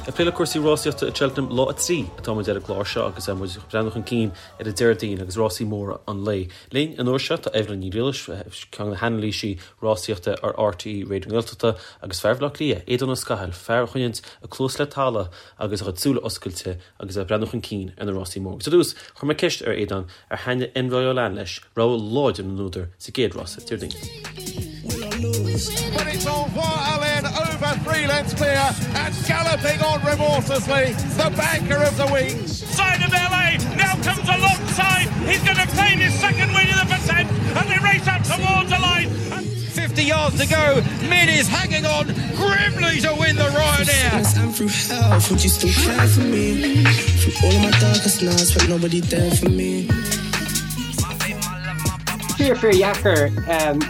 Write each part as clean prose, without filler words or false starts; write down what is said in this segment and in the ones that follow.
Ag plé le cúrsaí rásaíochta i Cheltenham lá 3 atá muid ar an gclár seo agus muid ag breathnú chun cinn ar an Déardaoin agus rásaí móra an lae. Linn an uair seo tá Evelyn Ní Ghriallais, ceann de na hanailísí rásaíochta ar RTÉ Raidió na Gaeltachta agus fear Bhaile Átha Cliath, Aodán Ó Scathail, fear a choinníonn a chluas le talamh agus a chuid súile oscailte agus é ag breathnú chun cinn ar na rásaí móra. Agus ar dtús, chuir mé ceist ar Aodán ar thaitnigh Envoi Allen leis, rogha láidir na n-údar sa gcéad rása Déardaoin. But it's Envoi Allen over 3 lengths clear and galloping on remorselessly, the banker of the week. Side of LA now comes alongside. He's going to claim his second win of the Pertemps and they race up towards the line. 50 yards to go. Min is hanging on grimly to win the Ryanair. I'm through hell, would you still care for me? Through all of my darkest nights, but nobody there for me. Fíor fíor dheacair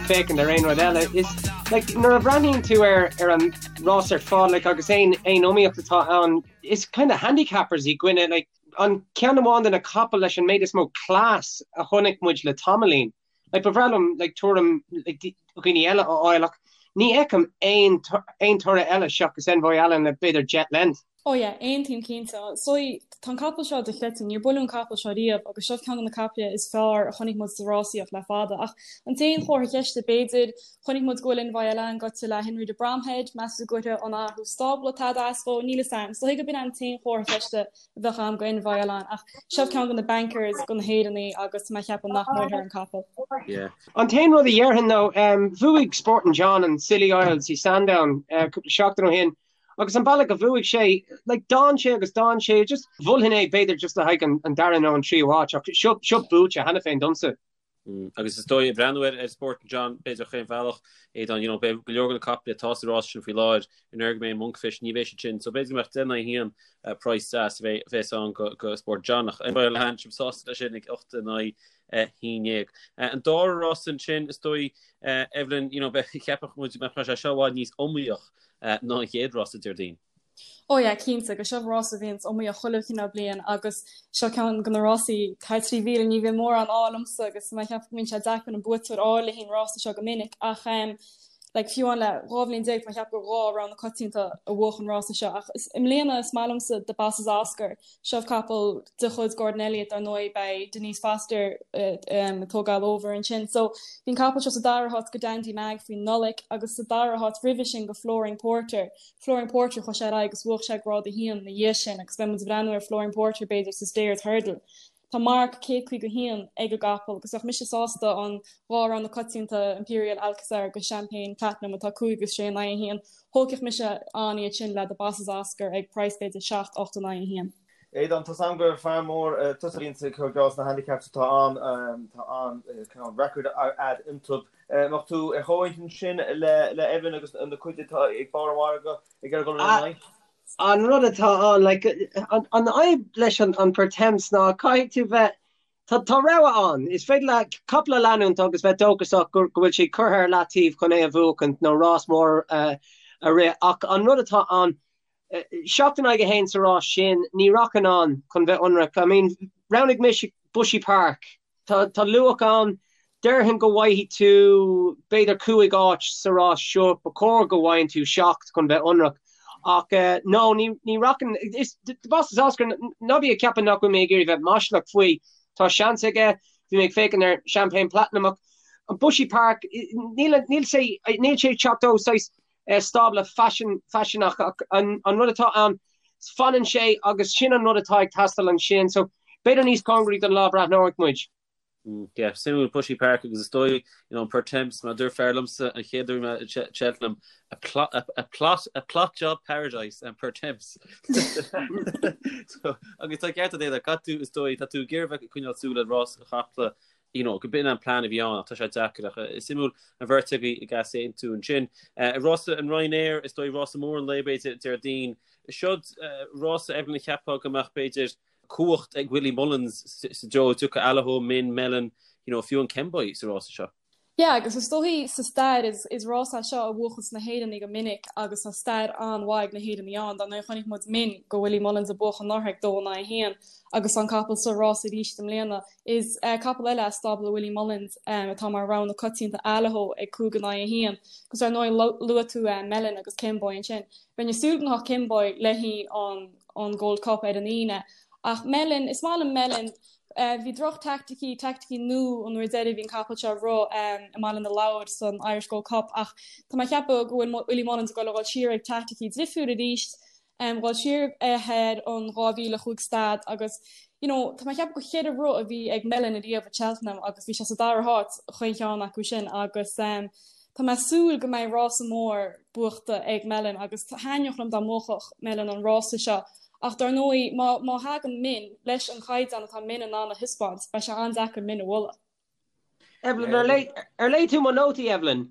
féachaint ar aon rud eile. Is like nuair a bhreathnaíonn tú ar ar an rás ar fad like agus aon aon iomaíocht atá ann, is kind of handicappers i gcoinne like an ceann amháin de na capaill leis an méid is mó class a chonaic muid le tamaillín. Like ba bhreá liom like tuairim like dhaoine eile a fháil ach ní fheicim aon aon toradh eile seachas Envoi Allen le b'fhéidir Jet Lent. Oh yeah, aontaím cinnte. So, tá an capall seo dochreidte, níor buaileadh an capall seo riamh agus seo ceann de na caiple is fearr a chonaic muid sa rásaíocht le fada. Ach an t-aon chomhartha ceiste b'fhéidir, chonaic muid go bhfuil Envoi Allen gaibhte le Henry de Bromhead, meas tú go gcuirfidh an athrú stábla tada as dhó? Níl 'fhios a'm. Is dóigh gurb in an t-aon chomhartha ceiste a bheadh a'm go Envoi Allen ach seo ceann de na bankers go na hÉireannaigh agus tá mé ag ceapadh nach mbuailfear an capall. Yeah. An t-aon rud a dhéarfainn nó bhuaigh Sporting John an Scilly Isles i Sandown cúpla seachtain ó shin agus an bealach a bhuaigh sé, like d'fhan sé agus d'fhan sé, just mholfainn é b'fhéidir just le haghaidh an dara nó an tríú háit ach seo seo buaite cheana féin domsa. Agus is dóigh, ag breathnú ar Sporting John, b'fhéidir chaon bhealach, Aodán, you know, beidh go leor de na caiple atá sa rás sin faoi láthair, an uair go mbeidh Monkfish, ní bheidh siad sin, so b'fhéidir go mbeadh 10 in aghaidh 1 price deas a bheas ann go Sporting John, ach Envoi Allen, sibh sásta leis sin ag 8 in aghaidh 11. An dara rás ansin, is dóigh, Evelyn, you know, cheapfadh muid go mbeadh sé seo i bhfad níos iomaíoch ná an chéad rása Déardaoin. Ó yeah, cinnte, agus seo rás a bhíonns iomaíoch chuile chineál bliain agus seo ceann de na rásaí thar 3,000, ní bhíonn mórán ádh liomsa agus tá mé ag ceapadh go mbíonn sé deacair an buaiteoir a fháil le haghaidh an rása seo go minic ach em like fiú amháin le 12 bhliain tá mé ag ceapadh gur dhá rogha na coitianta a bhuach an rása seo ach is i mbliana is maith liomsa The Boss Is Oscar Seo capall de chuid Gordon Elliott dar ndóigh, beidh Denise Foster ag tógáil over ansin. So bhí an capall seo sa dara háit go Dandy Mag faoin Nollaig agus sa dara háit roimhe sin go Flooring Porter. Flooring Porter chuaigh sé ar aghaidh agus bhuach sé grád 1 ina dhiaidh sin agus beidh muid ag breathnú ar Flooring Porter b'fhéidir sa Stayers Hurdle. Tá marc 151 ag an gcapall agus bheadh mise sásta an dhá rogha na coitianta Imperial Alcazar agus Champagne Platinum atá 5 agus 6 in aghaidh 1. Thógfadh mise an iad sin le The Boss Is Oscar ag praghas b'fhéidir 7, 8 in aghaidh 1. Aodán, tá's a'm gur fear mór tusa a bhíonns ag cur geall sna handicaps atá ann, tá an cineál record a'd iontub. Mbeadh tú ar chomhintinn sin le Evelyn agus na cuid atá ag barr an mhargaidh ag iarraidh dul ina n-aghaidh? An rud atá ann, like, an fhadhb leis an Pertemps ná caithfidh tú bheith, tá tá rogha ann, is féidir leat capall a leanúint agus bheith dóchasach go go bhfuil sé curtha ar leataobh chun é a bhuachaint nó rás mór a rith ach an rud atá ann, 7 in aghaidh 1 sa rás sin, ní rachainn ann chun bheith ionraic. I mean, roghnaigh mise Bushy Park Tá tá luach ann. Déarfainn go bhfaighidh tú b'fhéidir 5 áit sa rás seo. Ba chóir go bhfaigheann tú 7 chun bheith ionraic. Ach no, ní ní rachainn. Is The Boss Is Oscar, ná bí ag ceapadh nach bhfuil mé ag iarraidh bheith maslach faoi. Tá seans aige. Bhí mé ag féachaint ar Champagne Platinum ach an Bushy Park, níl níl sé níl sé ag teacht ó saghas stábla faisean faiseanach ach an an rud atá ann, fanann sé agus sin an rud atá ag teastáil ansin. So b'fhéidir níos cóngaraí don lá breathnóidh muid. Yeah, suimiúil Bushy Park agus is dóigh, you know, an Pertemps, mar a dúirt fear liomsa an chéad uair mé i Cheltenham, a plot, a, a plot, a plot job paradise an Pertemps. So, agus tá ceart agat, caithfidh tú, is dóigh, tá tú ag iarraidh bheith ag coinneáil súil ar rás an chapall you know, go b'in an plean a bhí ann ach tá sé deacair ach is suimiúil an bheirt agaibh ag easaontú ansin. Rása an Ryanair, is dóigh rása mór an lae b'fhéidir Déardaoin. Seod rása Evelyn a cheapfá go mbeadh b'fhéidir cumhacht ag Willie Mullins sa dtreo a dtiocfadh Allaho, Min, Melon, you know, fiú an Kemboy sa rása seo. Yeah, agus is dóichí sa stair is is rás é seo a bhuachas na hÉireannaigh go minic agus tá stair an-mhaith ag na hÉireannaigh ann. Dar ndóigh chonaic muid Min do Willie Mullins ag buachan anuraidh ag 2 in aghaidh 1 agus tá an capall sa rás arís i mbliana. Is capall eile as stábla Willie Mullins atá mar rogha na coitianta Allaho ag 5 in aghaidh 1. Agus ar ndóigh luaigh tú Melon agus Kemboy ansin. Bheinn ag súil go ngabhfadh Kemboy le haghaidh an Gold Cup ar an Aoine. Ach Melon, is maith liom Melon. Bhí droch-teaicticí, teaicticí nua an uair deiridh a bhí an capall seo ag rith i mBaile na Lobhar san Irish Gold Cup ach tá mé ag ceapadh go bhfuil Willie Mullins ag dul a dhul siar ag teaicticí difriúil arís, dhul siar ar an 2005 stad agus you know tá mé ag ceapadh gur cheithre rith a bhí ag Melon ariamh i Cheltenham agus bhí sé sa dara háit chaon cheann acu sin agus tá mé ag súil go mbeidh rása mór buachta ag Melon agus thaitneodh liom dá mbuafadh Melon an rása seo Ach dar ndóigh, má má thagann Min leis an chaighdeán atá Min in ann a thaispeáint, beidh sé an-deacair Min a bhualadh. Evelyn, ar léigh ar léigh tú mo nótaí, Evelyn?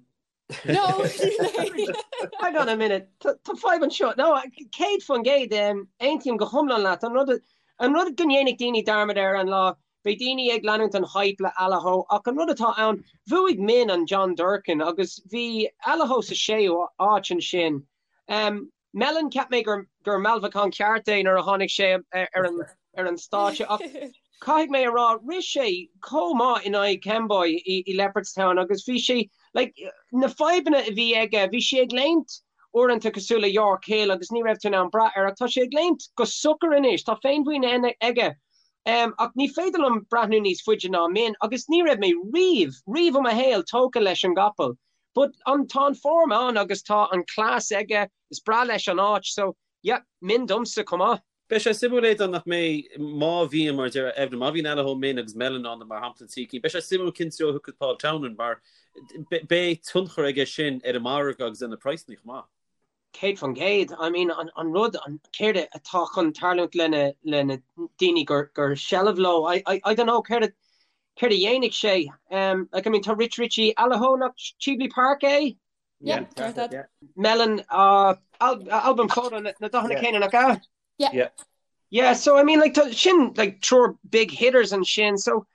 No, níor léigh. Hang on a minute, tá tá fadhb anseo. No, 100%, aontaím go hiomlán leat. An rud an rud go ndéanfaidh daoine dearmad air an lá, beidh daoine ag leanúint an hype le Allaho, ach an rud atá ann, bhuaigh Min an John Durkan agus bhí Allaho sa séú áit ansin. Melon, cheap mé gur gur mealbhacán ceart é nuair a tháinig sé ar an ar an stáitse ach caithfidh mé a rá, rith sé chomh maith in aghaidh Kemboy i i Leopardstown agus bhí sé like na fadhbanna a bhí aige, bhí sé ag léimt uaireanta cosúil le York Hill agus ní raibh tú in ann brath air ach tá sé ag léimt go socair anois, tá féinmhuinín aige. Um, ach ní féidir liom breathnú níos faide ná Min agus ní raibh mé riamh, riamh i mo shaol tógtha leis an gcapall. But an tá an form ann agus tá an cleas aige, is breá leis an áit so yeah, Min domsa chomh maith. Beidh sé suimiúil Aodán nach mbeidh, má bhíonn, mar a deir Evelyn, má bhíonn Allaho, Min agus Melon ann mar shampla an trí cinn, beidh sé suimiúil cén treo a thiocfaidh Paul Townend mar beidh tionchar aige sin ar an margadh agus ar na praghsanna chomh maith. 100%. I mean an an rud an céard atá chun tarlúint lena lena daoine gur gur seilbh leo I I I don't know céard céard a dhéanfaidh sé. Um like I mean tá Rich Ricci Allaho nach Cheveley Park é? Yeah, ceart agat. Yeah. Melon uh al Al Boum Photo na na dathanna céanna nach ea? Yeah. Yeah. Yeah, so I mean like tá sin like triúr big hitters ansin so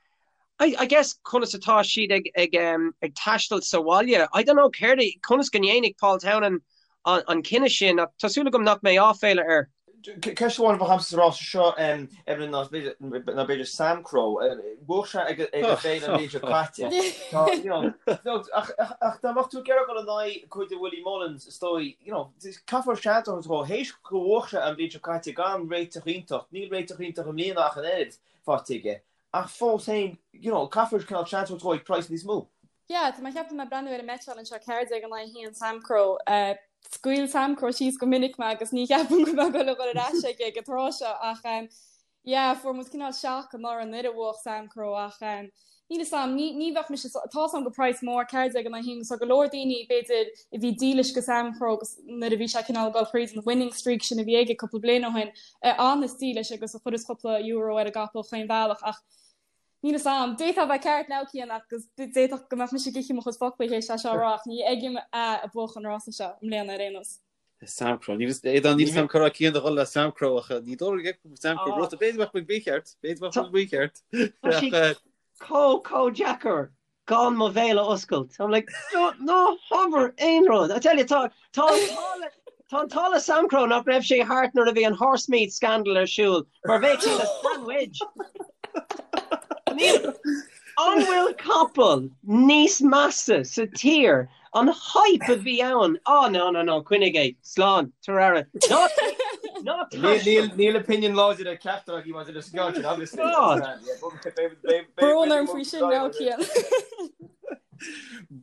I I guess conas atá siad ag ag um ag taisteal sa bhaile. I don't know céard é conas go ndéanfaidh Paul Townend an an cinneadh sin ach tá súil agam nach mbeidh áiféala air. Ceist amháin a bheadh agamsa sa rása seo, Evelyn, ná ná b'fhéidir Samcro. Bhuaigh sé ag ag an bhféile an bhliain seo caite. Tá you know ach ach ach dá mbeadh tú ag iarraidh dul in aghaidh cuid de Willie Mullins is dóigh you know caithfear seans a thabhairt dó théis go bhuaigh sé an bhliain seo caite gan réiteach iontach. Níl réiteach iontach i mbliana ach an oiread faighte aige. Ach fós féin, you know, caithfear cineál seans a thabhairt dó ag praghas níos mó. Yeah, tá mé ag ceapadh mé ag breathnú ar an mbeitseáil anseo 14 in aghaidh 1 Samcro. Scaoil Samcro síos go minic mé agus ní cheapaim go mbeidh dul a dhul ar ais aige ag an tráth seo ach yeah, fuair muid cineál shock anuraidh nuair a bhuaigh Samcro ach níl 'fhios a'm, ní ní bheadh mise tá 'fhios a'm gur praghas mór 14 in aghaidh 1 agus tá go leor daoine b'fhéidir a bhí dílis go Samcro agus nuair a bhí sé cineál ag dul thríd an winning streak sin a bhí aige cúpla bliain ó shin a fhanas dílis agus a chuireas cúpla euro ar an gcapall chaon bhealach ach níl 'fhios a'm. D'fhéadfá a bheith ceart now Cian agus d'fhéadfadh go mbeadh mise ag ithe mo chuid foclaí théis é seo a rá ach ní fheicim é ag buachan an rása seo i mbliana ar aon nós. Samcro. Níl 'fhios Aodán níl 'fhios a'm cá raibh Cian a dhul le Samcro ach ní dóigh liom Samcro rud b'fhéidir go mbeadh muid mícheart b'fhéidir go mbeadh muid mícheart. Tá sé chomh chomh deacair gan mo bhéal a oscailt. I'm like, no, ná habair aon rud. I tell you, tá tá an t-ádh le tá an t-ádh le Samcro nach raibh sé thart nuair a bhí an horsemeat scandal ar siúl, mar bheadh sé ina sandwich. Níl An bhfuil capall níos measa sa tír? An hype a bhí ann. Oh no, no, no, coinnigh é. Slán, tabhair aire. Ná ná taistil. Níl opinion láidir ag ceachtar agaibh maidir leis an gceann sin, obviously. God. Brón orm faoi sin now, Cian.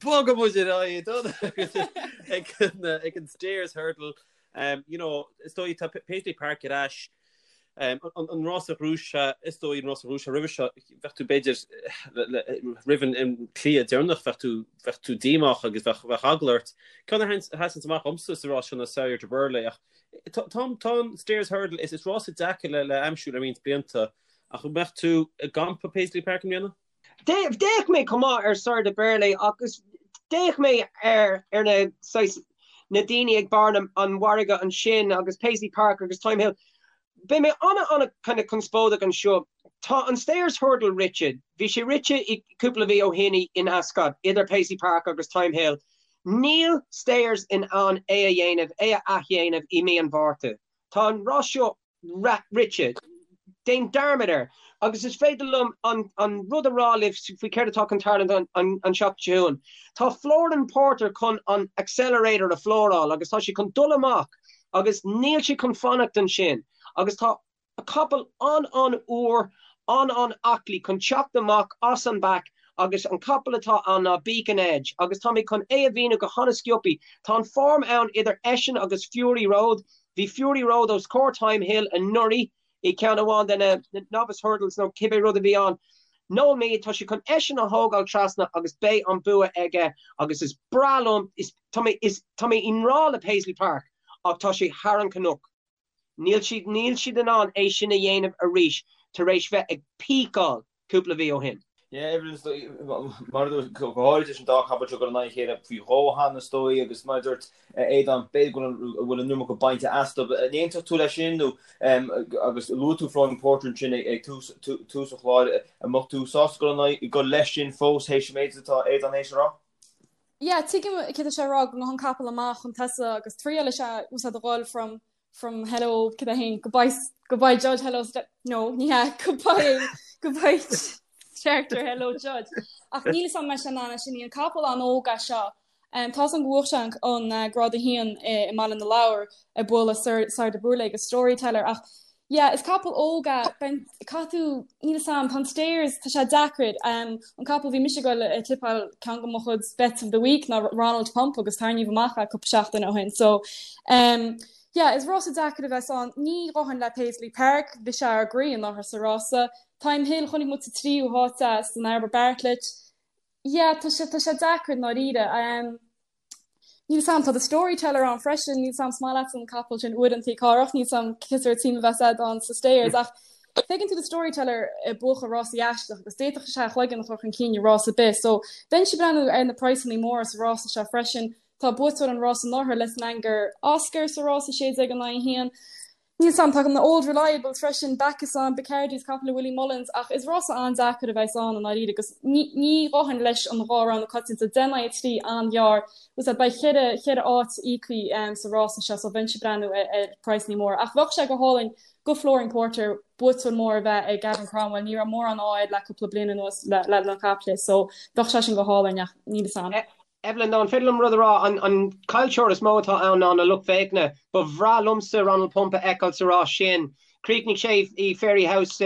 Bogfaidh muid ar aghaidh ag ag an Stayers Hurdle. Um, you know, is dóigh tá Paisley Park ar ais. Um, an, an rás a ghnóthaigh sé, is dóigh an rás a ghnóthaigh sé roimhe seo, bheadh tú b'fhéidir roimh an, an cliath deireanach, bheadh tú, bheadh tú díomách agus bheadh, bheadh eagla ort. Ceann a sheasann amach dhomsa sa rás seo ná Sire Du Berlais ach tá, tá, tá an Stayers Hurdle, is, is rás deacair le, le aimsiú le roinnt blianta ach an mbeadh tú i gcampa Paisley Park i mbliana? D'fhéach mé chomh maith ar Sire Du Berlais agus d'fhéach mé ar ar na saghas na daoine ag barr an mhargaidh ansin agus Paisley Park agus Thyme Hill. Beidh mé ana ana kind of conspóideach anseo. Tá an Stayers Hurdle rite. Bhí sé rite i cúpla mhí ó shin in Ascot idir Paisley Park agus Thyme Hill. Níl Stayers in ann é a dhéanamh, é a athdhéanamh i mí an Mhárta. Tá an rás seo rite. Déan dearmad air. Agus is féidir liom an rud a rá libh faoi céard atá chun tarlúint an tseachtain seo chugainn. Tá Flooring Porter chun an accelerator a flooráil agus tá sé chun dul amach agus níl sé chun fanacht ansin agus tá capall an-an-úr, an-an-aclaí chun teacht amach as an bpack agus an capall atá ann ná Beacon Edge agus tá mé chun é a mhíniú go han-sciobthaí. Tá an form ann idir eisean agus Fury Road. Bhí Fury Road os comhair Thyme Hill anuraidh i gceann amháin de na Novice Hurdles nó cibé rud a bhí ann. Noel Meade, tá sé chun eisean a thógáil trasna agus beidh an bua aige agus is breá liom, is, tá mé, is, tá mé i ngrá le Paisley Park ach tá sé thar an cnoc. Níl siad, níl siad in ann é sin a dhéanamh arís tar éis bheith ag píceáil cúpla mhí ó shin. Yeah, Evelyn, mar a dúirt, go háirid leis an dá chapall seo ag dul in aghaidh a chéile faoi dhó cheana is dóigh agus mar a dúirt Aodán, b'fhéidir go bhfuil an iomarca bainte astu. An aontódh tú leis sin nó agus luaigh tú Flooring Porter ansin ag tús an chláir, an mbeadh tú sásta dul in aghaidh, dul leis sin fós théis an méid atá Aodán théis a rá? Yeah, tuigim céard atá sé a rá go ngabhann an capall amach chun tosaigh agus triail is ea úsáid a dhul from from hello cad é féin goodbye goodbye judge hello no ní hea goodbye goodbye starter hello judge ach níl a fhios agam an mbeidh sé in ann é sin an capall an-óg é seo um, tá a fhios agam go bhuaigh sé an, an uh, grád 1 i, i mBaile na Lobhar ag bualadh Sire Du Berlais agus Storyteller ach Yeah, is capall óg é, caithfidh tú, níl 'fhios a'm, tá an Stayers, tá sé deacair. An capall bhí mise ag goil a tipeáil ceann de mo chuid bets of the week ná Ronald Pump agus tarraingíodh amach é cúpla seachtain ó shin. So, um, yeah, is rása deacair a bheas ann. Ní ghabhfainn le Paisley Park, bhí sé ár gcroí anuraidh sa rása. Thyme Hill, chonaic muid sa tríú háit é san Albert Bartlett. Yeah, tá sé, tá sé deacair i ndáiríre. Um, Níl 'fhios a'm, tá The Storyteller ann freisin, níl 'fhios a'm, is maith leatsa an capall sin uaireanta Cárthach, níl 'fhios a'm cén sórt suim a bheas a'd ann sa Stayers ach feiceann tú The Storyteller ag buachan rásaí aisteach agus d'fhéadfadh sé a chloigeann a chur chun cinn i rás ar bith so bheinnse ag breathnú ar na praghsanna móra sa rása seo freisin. Tá buaiteoir an rása anuraidh Lisnagar Oscar sa rása 16 in aghaidh 1. Níl 'fhios a'm, tá na Old Reliables freisin, Bacchus ann, Bacardi's capall le Willie Mullins, ach is rása an-deacair a bheas ann i ndáiríre agus ní ghabhfainn leis an dhá rogha na coitianta, 10 in aghaidh 3 an-ghearr, agus beidh cheithre, cheithre áit íoctha sa rása seo so bheinnse ag breathnú ar praghsanna móra. Ach bheadh sé go hálainn go Flooring Porter buaiteoir mór a bheith ag Gavin Cromwell, ní raibh mórán ádh air le cúpla bliain anuas le na caiple so bheadh sé sin go hálainn ach níl 'fhios a'm. Evelyn, an féidir liom rud a rá? An caillteoir is mó atá ann ná na lucht féachana. Ba bhreá liomsa Ronald Pump a fheiceáil sa rás sin. Chríochnaigh sé i Fairyhouse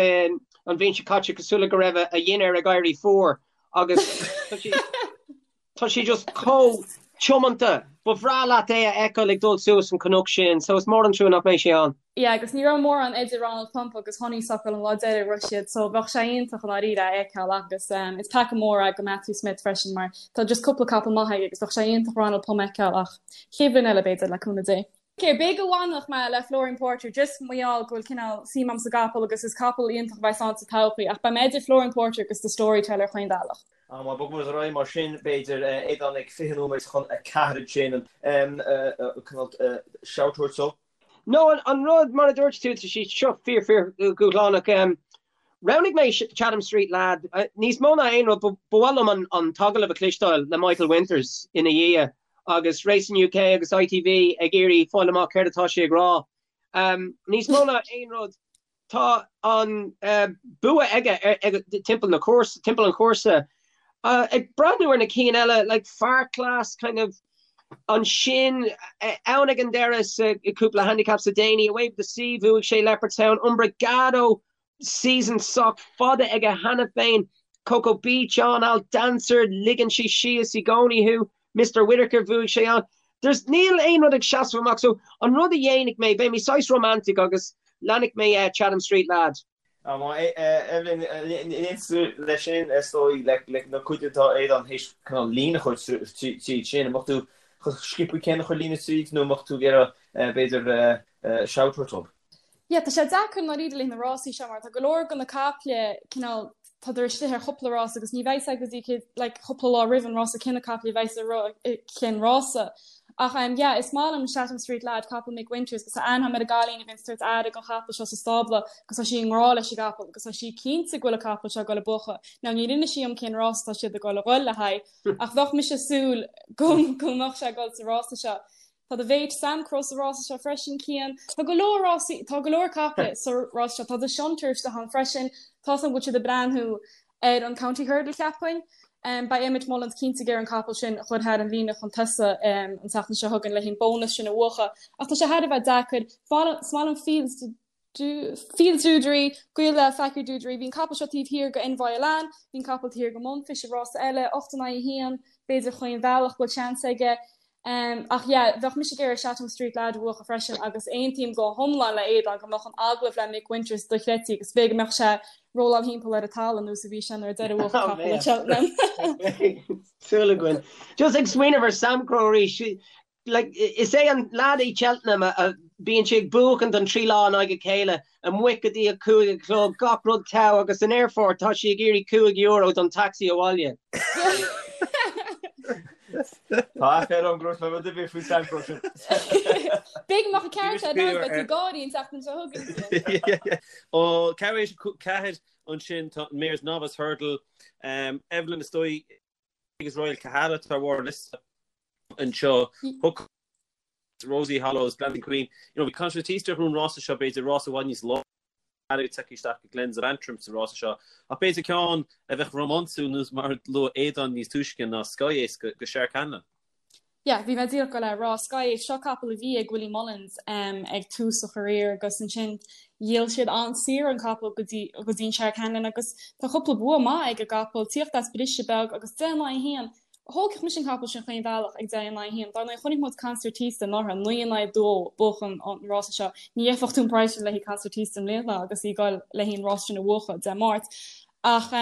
an bhliain seo caite cosúil le go raibh a dhinnéar ag éirí fuar agus tá sé just chomh tiomanta. Ba bhreá leat é a fheiceáil ag dul suas an cnoc sin, so is mór an trua nach mbeidh sé ann. Yeah agus ní raibh mórán idir Ronald Pump agus Honeysuckle an lá deiridh a rith siad so bheadh sé iontach i ndáiríre é a fheiceáil agus um, is peaca mór é go Matthew Smith freisin mar tá just cúpla capall maith aige agus bheadh sé iontach Ronald Pump a fheiceáil ach chéad bhliain eile b'fhéidir le cúnamh Dé. Ok, b'fhéidir go bhfanfadh mé le Flooring Porter just mar gheall go bhfuil cineál suim a'm sa gcapall agus is capall iontach a bheas ann sa todhchaí ach beidh mé idir Flooring Porter agus The Storyteller chaon bhealach. Ah, má bogfaidh muid ar aghaidh mar sin, b'fhéidir, Aodán ag 20 nóiméad chun 4 ansin, cineál shout a thabhairt dó. No, an rud, mar a dúirt tú, tá sé seo fíor fíor dhúshlánach. Roghnaigh mé Chatham Street Lad. Níos mó ná aon rud, ba mhaith liom an t-agallamh a chloisteáil le Michael Winters ina dhiaidh agus Racing UK agus ITV ag iarraidh fáil amach céard atá sé ag rá. Níos mó ná aon rud, Tá an bua aige timpeall na cúrsa, timpeall an chúrsa. Ag breathnú ar na cinn eile, like Far Class kind of ansin ann ag an deireadh sa cúpla handicap le déanaí, Away With The Sea, bhuaigh sé Leopardstown, Umbrigado, season sách fada aige cheana féin, Coko Beach ann, Al Dancer, ligeann sé síos i gcónaí thú. Mister Whitaker, bhuaigh sé ann. There's, níl aon rud ag seasamh amach so an rud a dhéanfaidh mé, beidh mé saghas romantic agus leanfaidh mé Chatham Street Lad. Evelyn, aontaíonn tú leis sin is dóigh le na cuid atá Aodán théis cineál líne a chur tríd sin, an mbeadh tú chun sciobtha céanna a chur líne tríd nó an mbeadh tú ag iarraidh b'fhéidir shout a thabhairt dóibh? Yeah, tá sé deacair i ndáiríre leis na rásaí seo mar tá go leor de na caiple cineál tádar istigh ar chúpla rás agus ní bheidh a fhios agat go dtí céad like cúpla lá roimh an rása cé na caiple a bheidh sa cén rása. Ach um yeah, is maith liom Chatham Street Lad, capall Mick Winters, agus tá aithne agam ar an gcailín a bhíonn ag tabhairt aire don chapall seo sa stábla agus tá sí i ngrá leis an gcapall agus tá sí cinnte go bhfuil an capall seo ag dul ag buachan. Now níor inis sí dom cén rás atá siad ag dul a dhul le haghaidh ach bheadh mise ag súil go go mbeadh sé ag dul sa rása seo. Tá do mhéit Samcro sa rása seo freisin, Cian. Tá go leor rásaí, tá go leor caiple sa rása seo. Tá The Shunter istigh ann freisin. Tá 's agam go bhfuil siad ag breathnú ar an County Hurdle cheapfainn. Beidh Emmet Mullins cinnte ag iarraidh an capall sin a chur thar an líne chun tosaigh an tseachtain seo chugainn le haghaidh an bónas sin a bhuachan. Ach tá sé thar a bheith deacair. Is maith liom Fields Fields Dudary, gaol le Fakir D'Oudairies. Bhí an capall seo taobh thiar go Envoi Allen, bhí an capall taobh thiar go Monfish i rása eile, 8 in aghaidh 1, b'fhéidir chaon bhealach go bhfuil seans aige. Ach yeah, bheadh mise ag iarraidh Chatham Street Lad a bhuachan freisin agus aontaím go hiomlán le Aodán go mbeadh an agallamh le Mick Winters dochreidte agus b'fhéidir go mbeadh sé rolláil thimpeall ar an talamh nós a bhí sé nuair a deireadh bhuach capall ag Cheltenham. Súil againn. Just ag smaoineamh ar Samcro arís, like, is é an lad i Cheltenham a bíonn sé ag buachan don trí lá in aghaidh a chéile, amuigh go dtí a 5 a chlog, gach rud togha agus san aerfort tá sí ag iarraidh €5 don taxi abhaile. Tá aiféala orm go raibh mé rud ar bith faoi Samcro sin. B'fhéidir go mbeadh an ceart agat beidh tú ag gáirí an tseachtain seo chugainn. Ó ceathrú éis 4 ansin tá an Mares Novice Hurdle, Evelyn is dóigh agus Royal Kahala atá ar bharr an liosta anseo. Hook Rosie Hollows, Glancing Queen. You know, bhí Concertista ar an rása seo b'fhéidir rás i bhfad níos láidre tagtha isteach go Glens of Antrim sa rása seo. Ach b'fhéidir ceann a bheadh rómánsúil nós mar a luaigh Aodán níos túisce ná Sky Ace go Shark Hanlon. Yeah, bhí mé díreach ag dul a rá Sky Ace, seo capall a bhí ag Willie Mullins um, ag tús a career agus ansin dhíol siad an-saor an capall go dtí go dtí an Shark Hanlon agus tá cúpla bua maith ag an gcapall, tíocht as briseadh beag agus 10 in aghaidh 1. Thógfadh mise an capall sin chaon bhealach ag 10 in aghaidh 1. Dar ndóigh, chonaic muid Concertista anuraidh, 9 in aghaidh 2 buachan an rása seo. Ní gheibheadh tú an praghas sin le haghaidh Concertista i mbliana agus í ag dul le haghaidh an rása sin a bhuachan Dé Máirt. Ach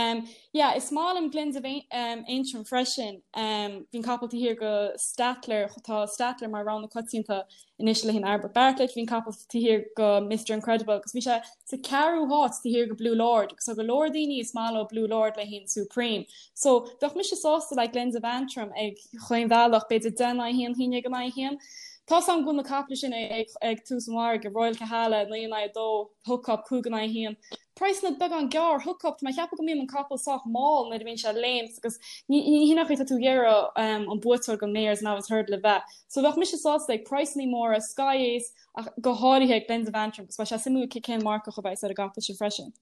yeah, is maith liom Glens of Antrim freisin. Bhí an capall taobh thiar go Stattler, tá Stattler mar rogha na coitianta anois le haghaidh an Albert Bartlett, bhí an capall taobh thiar go Mister Incredible agus bhí sé sa ceathrú háit taobh thiar go Blue Lord agus tá go leor daoine is maith leo Blue Lord le haghaidh an Supreme. So bheadh mise sásta le Glens of Antrim ag chaon bhealach, b'fhéidir 10 in aghaidh 1, 11 in aghaidh 1. Tá 's agam go bhfuil na caiple sin ag tús an mhargaidh, Royal Kahala 9 in aghaidh 2, Hook Up 5 in aghaidh 1. Praghsanna beagán gearr, Hook Up, tá mé ag ceapadh go mbíonn an capall sách mall nuair a bhíonn sé ag léimt agus ní hin an chaoi atá tú ag iarraidh an buaiteoir don Mares Novice Hurdle a bheith. So bheadh mise sásta ag praghsanna móra, Sky Ace ach go háirithe ag Glens of Antrim agus beidh sé suimiúil cén marcach a bheas ar an gcapall sin freisin.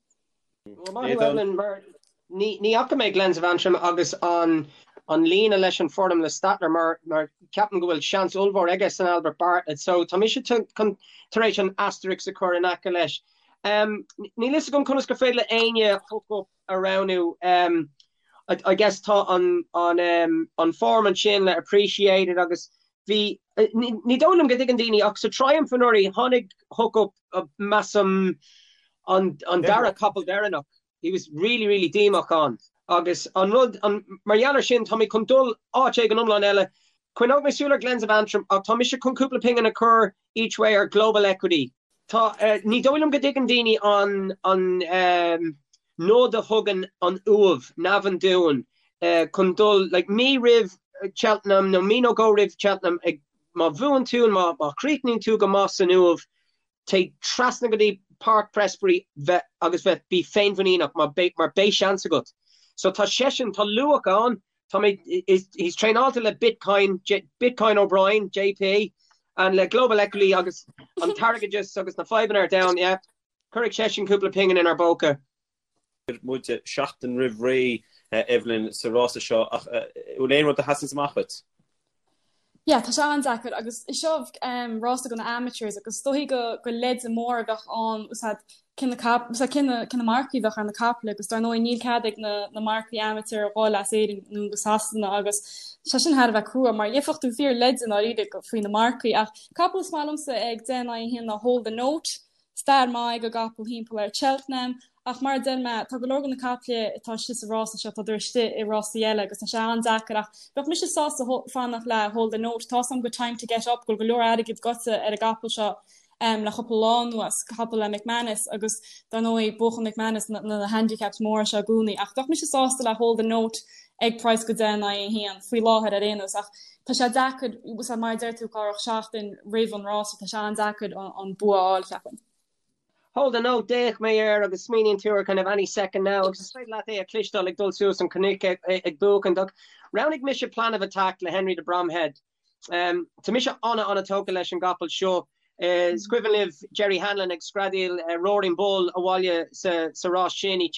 Well maith thú Evelyn mar ní fhaca mé Glens of Antrim agus an an líne leis an form le Stattler mar mar ceapaim go bhfuil seans ollmhór aige san Albert Bartlett so tá mise chun tar éis an asterisk a chur in aice leis. Níl fhios agam conas gur féidir le éinne Hook Up a roghnú. I guess tá an an an form ansin le Appreciate It agus bhí, ní dóigh liom go dtuigeann daoine ach sa Triumph anuraidh tháinig Hook Up measaim an an dara capall deireanach. He was really really díomách ann agus an rud an mar gheall ar sin tá mé chun dul áit éigin iomlán eile. Coinneoidh mé súil ar Glens of Antrim ach tá mise chun cúpla pingin a chur each way ar Global Equity. Tá, ní dóigh liom go dtuigeann daoine an an nod a thugann an Uaimh, Navan dúinn chun dul, like, mí roimh Cheltenham nó mí nó dhó roimh Cheltenham ag, má bhuann tú, má má chríochnaíonn tú go maith san Uaimh, téigh trasna go dtí Páirc Prestbury bheith agus bheith, bí féinmhuiníneach mar beidh, mar beidh seans agat. So tá seisean, tá luach ann, Tá mé, he's traenáilte le Bitcoin, Bitcoin O'Brien, JP, and le Global Equity agus an t-airgeadas agus na fadhbanna ar domhan, yeah. Cuirfidh seisean cúpla pingin inár bpóca. Muid seachtain roimh ré, Evelyn, sa rása seo ach bhfuil aon rud a sheasann amach dhuit? Yeah, tá sé an-deacair agus seo rása do na amateurs agus is dóichí go go leide mór a bheadh ann úsáid cé na cap úsáid cé na cé na marcaí a bheadh ar na caiple agus dar ndóigh níl cead ag na na marcaí amateur a dhul as Éirinn nó go Sasana agus sé sin thar a bheith crua mar gheibheadh tú fíor leide i ndáiríre faoi na marcaí ach capall is maith liomsa ag 10 in aghaidh 1 ná Hold the Note Stair maith ag an gcapall thimpeall ar Cheltenham ach mar a deir mé, tá go leor de na caiple atá istigh sa rása seo, tádar istigh i rásaí eile agus tá sé an-deacair ach bheadh mise sásta fanacht le Hold the Note. Tá's agam go Time to Get Up go bhfuil go leor airgid goite ar an gcapall seo le cúpla lá anuas, capall le McManus agus dar ndóigh buachann McManus na handicaps móra seo i gcónaí ach bheadh mise sásta le Hold the Note. ag praghas go 10 in aghaidh 1 faoi láthair ar aon nós ach tá sé deacair mar a deir tú Cárthach seachtain roimh an rása tá sé an-deacair an bua a fháil cheapfainn. Hold the note, d'fhéach mé air agus smaoiníonn tú ar kind of any second now agus is féidir leat é a chloisteáil ag dul suas an cnoic ag buachaint ach roghnaigh mise Plan of Attack le Henry de Bromhead. Tá mise ana-ana-tógtha leis an gcapall seo. Is cuimhin libh Jerry Hanlon ag screadaíl Roaring Bull abhaile sa rás sin i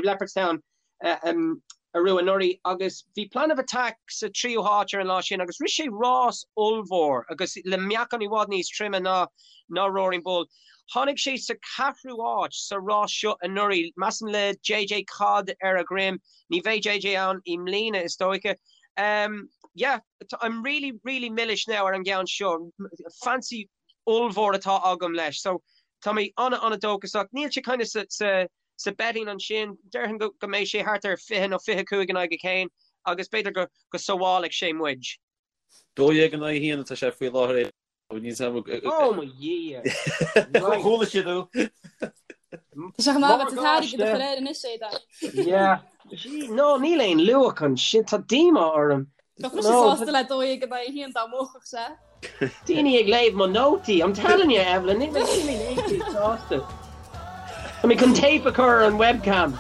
Leopardstown arú anuraidh agus bhí Plan of Attack sa tríú háit ar an lá sin agus rith sé rás ollmhór agus le meáchan i bhfad níos troime ná ná Roaring Bull. Tháinig sé sa cheathrú háit sa rás seo anuraidh, measaim le JJ Codd ar a dhroim. Ní bheidh JJ ann i mbliana is dóiche. Yeah, I'm really, really milis now ar an gceann seo. Fancy ollmhór atá agam leis. So tá mé ana-ana-dóchasach. Níl sé kind of sa sa sa betting ansin, déarfainn go go mbeidh sé thart ar 20 nó 25 in aghaidh a haon agus b'fhéidir go go sábhálfaidh sé muid. 12 in aghaidh 1 atá sé faoi láthair. Ó mo Dhia! Chuala siad thú. Tá sé chomh maith agat an t-airgead a chur air anois, Aidan. Yeah. Gee, no, níl aon luach ansin, tá díomá orm. Bheadh mise sásta le 12 in aghaidh 1 dá mbuafadh sé. Daoine ag léamh mo nótaí, I'm telling you, Evelyn, níl mé níl mé sásta. Tá mé chun téip a chur ar an webcam.